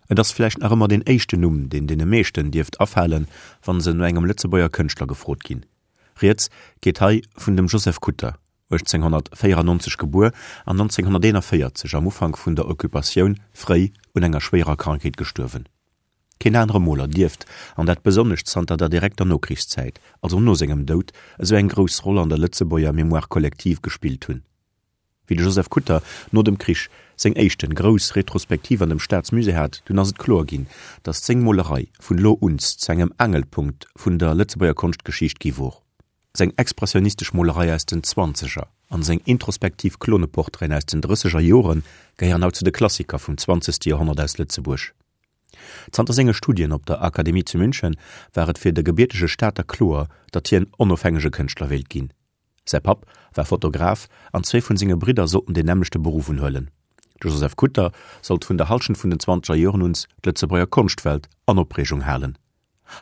Et ass vläicht nach ëmmer deen éischten Numm, deen deene meeschten dierft afalen, wa se no engem Lëtzebuerger Kënschtler gefrot ginn. Rieds geet hei vun dem Joseph Kutter, 1894 gebuer an 1941 am Ufank vun der Occupatioun fréi un enger schwéierer Krankheet gestuerwen. Keen anere Moler dierft, an dat besonnesch zanter der direkter Nokrichszäit, also no sengem Doud, esou eng grouss Roll an der Lëtzebuerger Mémoire collective gespillt hunn. Wéi de Joseph Kutter no dem Krich seng éischten grouss Retrospektiv an dem Staatsmusée hat, dunn ass et kloer ginn, datt seng Molerei vun elo uns zu engem Angelpunkt vun der Lëtzebuerger Konschtgeschicht gi wor. Seng expressionistesch Molerei aus den Zwanzeger an seng introspektiv Kloneportraiten aus den Drësseger Jore gehéieren haut zu de Klassiker vum zwanzegste Joerhonnert aus Lëtzebuerg. Zanter senge Studien op der Akademie zu München war et fir de gebiertege Stater kloer, datt hien onofhängege Kënschtler wéilt ginn. Säi Papp war Fotograf an zwee vun senge Bridder sollten deen nämmlechte Beruff unhuelen. De Joseph Kutter sollt vun der Hallschent vun den zwanzeger Joren uns d'Lëtzebuerger Konschtwelt an Opreegung halen.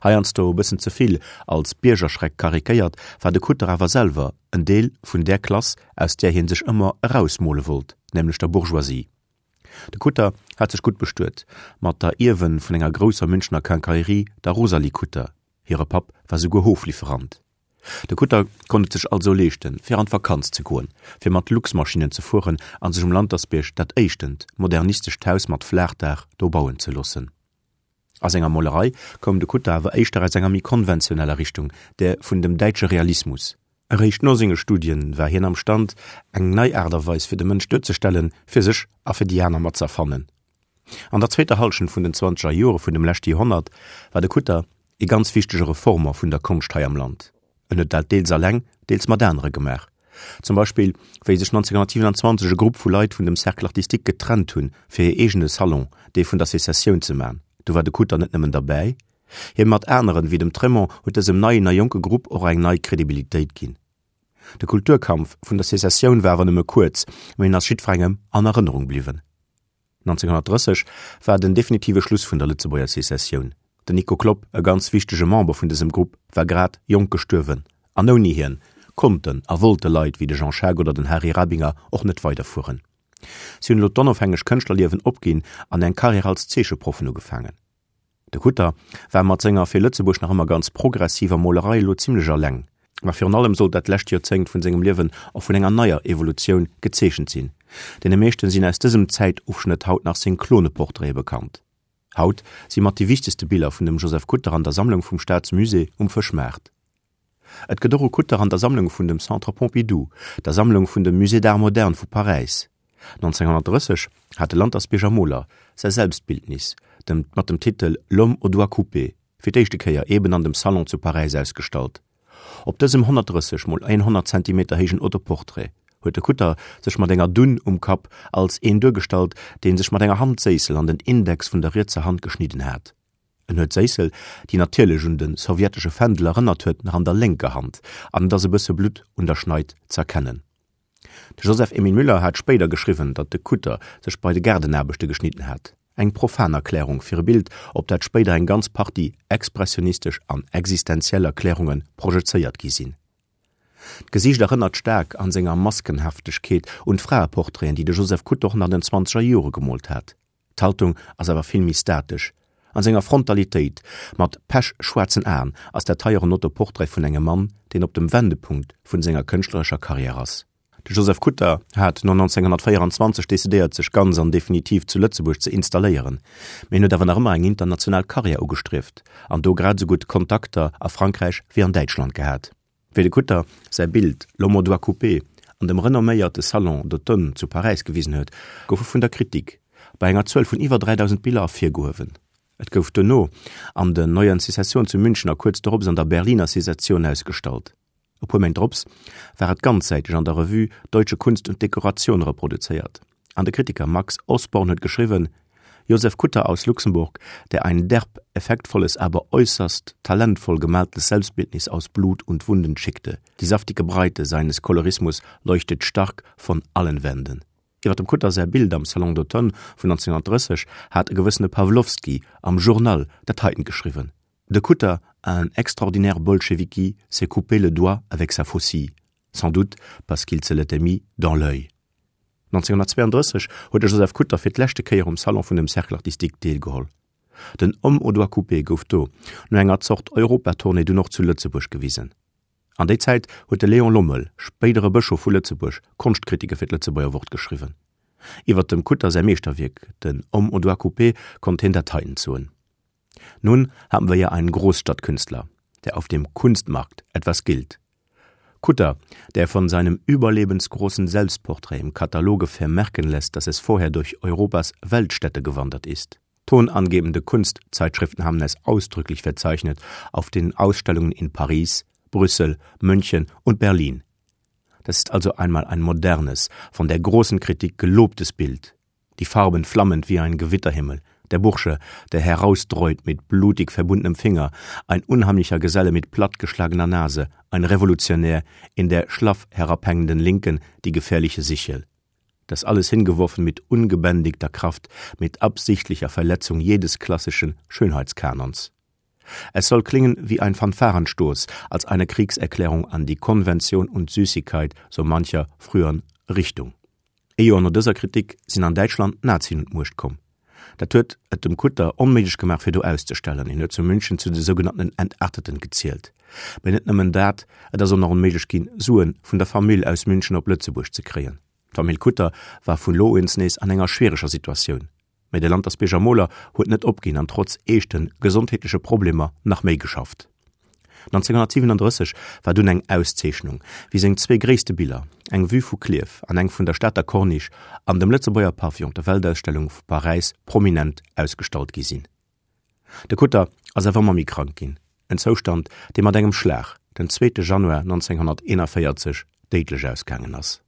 Heiansdo e bëssen ze vill als Biergerschreck karikéiert, war de Kutter awer selwer en Deel vun där Klass, aus där hie sech ëmmer erausmole wollt, nämlech der Bourgeoisie. De Kutter hat sech gutt bestuet mat der Ierwen vun enger grousser Münchener Quincaillerie, der Rosalie Kutter. Hire Papp war souguer Hoflieferant. De Kutter konnt et sech also leeschten, fir an d'Vakanz ze goen, fir mat Luxmaschinnen ze fueren a sech um Lantersbierg dat éischtent modernistescht Haus mat Flaachdaach do bauen ze loossen. A senger Molerei koum de Kutter awer éischter aus enger méi konventioneller Richtung, där vun dem däitsche Realismus. Eréischt no senge Studien war hien am Stand, eng nei Aart a Weis fir de Mënsch duerzestellen, fir sech a fir déi aner mat z'erfannen. An der zweeter Hallschent vun den zwanzeger Jore vun dem leschte Joerhonnert war de Kutter ee ganz wichtege Reformer vun der Konscht hei am Land. En huet dat deels alleng, deels mat anere gemaach. Zum Beispill wéi sech 1927 e Grupp vu Leit vun dem Cercle artistique getrennt hunn, fir hir eegene Salon, dee vun der Secessioun, ze man. Do war de Kutter net nëmmen derbäi, hie mat aneren, wéi dem Trémont, huet dësem neien a jonke Grupp och eng nei Kredibilitéit ginn. De Kulturkampf vun der Secessioun war awer nëmme kuerz, mee en ass jiddwerengem an Erënnerung bliwwen. 1930 war den definitive Schluss vun der Lëtzebuerger Secessioun. Den Nico Klopp, e ganz wichtege Member vun dësem Grupp, war grad jonk gestuerwen an ouni hien konnten a wollte Leit wéi de Jean Schaack oder den Hari Rabinger och net weiderfueren. Si hunn elo d'onofhängeg Kënschtlerliewen opginn an eng Karriär als Zeecheproffen ugefaangen. De Kutter war mat senger fir Lëtzebuerg nach ëmmer ganz progressiver Molerei elo zimlech alleng. Ma virun allem sollt dat lescht Joerzéngt vun sengem Liewen och vun enger neier Evolutioun gezeechent sinn. Deene meeschten sinn aus dësem Zäitofschnëtt haut nach seng Kloneportraite bekannt. Haut si mat déi wichtegste Biller vun dem Joseph Kutter an der Sammlung vum Staatsmusée um Fëschmaart. Et gëtt och e Kutter an der Sammlung vun dem Centre Pompidou, der Sammlung vun dem Musée d'Art moderne vu Paräis. 1930 hat de Lantersbierger Moler säi Selbstbildnis, dem mat dem Titel L'homme au doigt coupé, fir d'éischte Kéier eben an dem Salon zu Paräis ausgestallt. Op dësem 130 mol 100 Zentimeter héijen Autoportrait huet de Kutter sech mat enger Dunn um Kapp als een duergestallt, dee sech mat enger Handséissel an den Index vun der rietser Hand geschnidden hat. En huet d'Séissel, déi natierlech un de sowjetesche Fändel erënnert huet, nach an der lénker Hand an et ass e bësse Blutt un der Schneid z'erkennen. De Joseph Emile Müller hat spéider geschriwwen, datt de Kutter sech bei de Gaardenaarbechte geschnidden hat. Eng profan Erklärung fir e Bild, op dat spéider eng ganz Partie expressionistesch an existenziell Erklärunge projezéiert gi sinn. D'Gesiicht erënnert staark an senger Maskenhaftegkeet un d'Fraeportraiten, déi de Joseph Kutter och nach an den zwanzeger Jore gemoolt hat. D'Haltung ass awer vill méi statesch. An senger Frontalitéit, mat pechschwaarzen Aen, ass dat hei och en Autoportrait vun engem Mann, deen op dem Wendepunkt vun senger kënschtlerescher Karriär ass. De Joseph Kutter hat no 1924 decidéiert sech ganz an definitiv zu Lëtzebuerg ze installéieren, mee en huet awer nach ëmmer eng international Karriär ugestrieft an do grad esou gutt Kontakter a Frankräich wéi an Däitschland gehat. Wéi de Kutter säi Bild L'homme au doigt coupé an dem renomméierte Salon d'automne zu Paräis gewisen huet, gouf e vun der Kritik bei enger Zuel vun iwwer 3.000 Biller ervirgehuewen. Et gouf duerno an den Neuen Secession zu München a kuerz dorops an der Berliner Secession ausgestallt. E puer Méint drops war et ganzsäiteg an der Revue Deutsche Kunst und Dekoration reproduzéiert an de Kritiker Max Osborn huet geschriwwen, Josef Kutter aus Luxemburg, der ein derb, effektvolles, aber äußerst talentvoll gemaltes Selbstbildnis aus Blut und Wunden schickte. Die saftige Breite seines Kolorismus leuchtet stark von allen Wänden. Iwwer dem Kutter säi Bild am Salon d'automne vun 1930 hat e gewëssene Pawlowski am Journal dat heiten geschriwwen, De Kutter, un extraordinaire bolcheviki, s'est coupé le doigt avec sa faucille, sans doute parce qu'il se l'était mis dans l'œil. 1932 huet de Joseph Kutter fir d'leschte Kéier um Salon vun dem Cercle artistique deelgeholl. Den Homme aux doigts coupés gouf do, no enger Zort Europatournée, dunn och zu Lëtzebuerg gewisen. An déi Zäit huet de Léon Lommel, spéidere Bëschof vu Lëtzebuerg, Konschtkritike fir d'Lëtzebuerger Wort geschriwwen. Iwwer dem Kutter säi Meeschterwierk, den Homme aux doigts coupés, konnt hien dat heiten soen, Nun haben wir ja einen Großstadtkünstler, der auf dem Kunstmarkt etwas gilt. Kutter, der von seinem überlebensgroßen Selbstporträt im Kataloge vermerken lässt, dass es vorher durch Europas Weltstädte gewandert ist. Tonangebende Kunstzeitschriften haben es ausdrücklich verzeichnet auf den Ausstellungen in Paris, Brüssel, München und Berlin. Das ist also einmal ein modernes, von der großen Kritik gelobtes Bild. Die Farben flammend wie ein Gewitterhimmel, der Bursche, der herausdreut mit blutig verbundenem Finger, ein unheimlicher Geselle mit plattgeschlagener Nase, ein Revolutionär in der schlaff herabhängenden Linken die gefährliche Sichel das alles hingeworfen mit ungebändigter Kraft, mit absichtlicher Verletzung jedes klassischen Schönheitskanons. Es soll klingen wie ein Fanfarenstoß, als eine Kriegserklärung an die Konvention und Süßigkeit so mancher früheren Richtung. Ee Joer no dëser Kritik sinn an Däitschland d'Nazien un d'Muecht komm. Dat huet et dem Kutter onméiglech gemaach fir do auszestellen. Hien huet zu München zu de sougenannten Entarteten gezielt. Mee net nëmmen dat, et ass och nach onméiglech ginn, Suen vun der Famill aus München op Lëtzebuerg ze kréien. D'Famill Kutter war vun lo uns nees an enger schwiereger Situatioun. Mee de Lantersbierger Moler huet net opginn an trotz eeschte gesondheetleche Problemer nach méi geschafft. 1937 war dunn eng Auszeechnung, wéi seng zwee gréisste Biller, eng Vue vu Klierf an eng vun der Stater Corniche, an dem Lëtzebuerger Pavillon op der Weltausstellung vu Paräis prominent ausgestallt gi sinn. De Kutter ass awer ëmmer méi krank ginn, en Zoustand, dee mat engem Schlag den zweete Januar 1941 déidlech ausgaangen ass.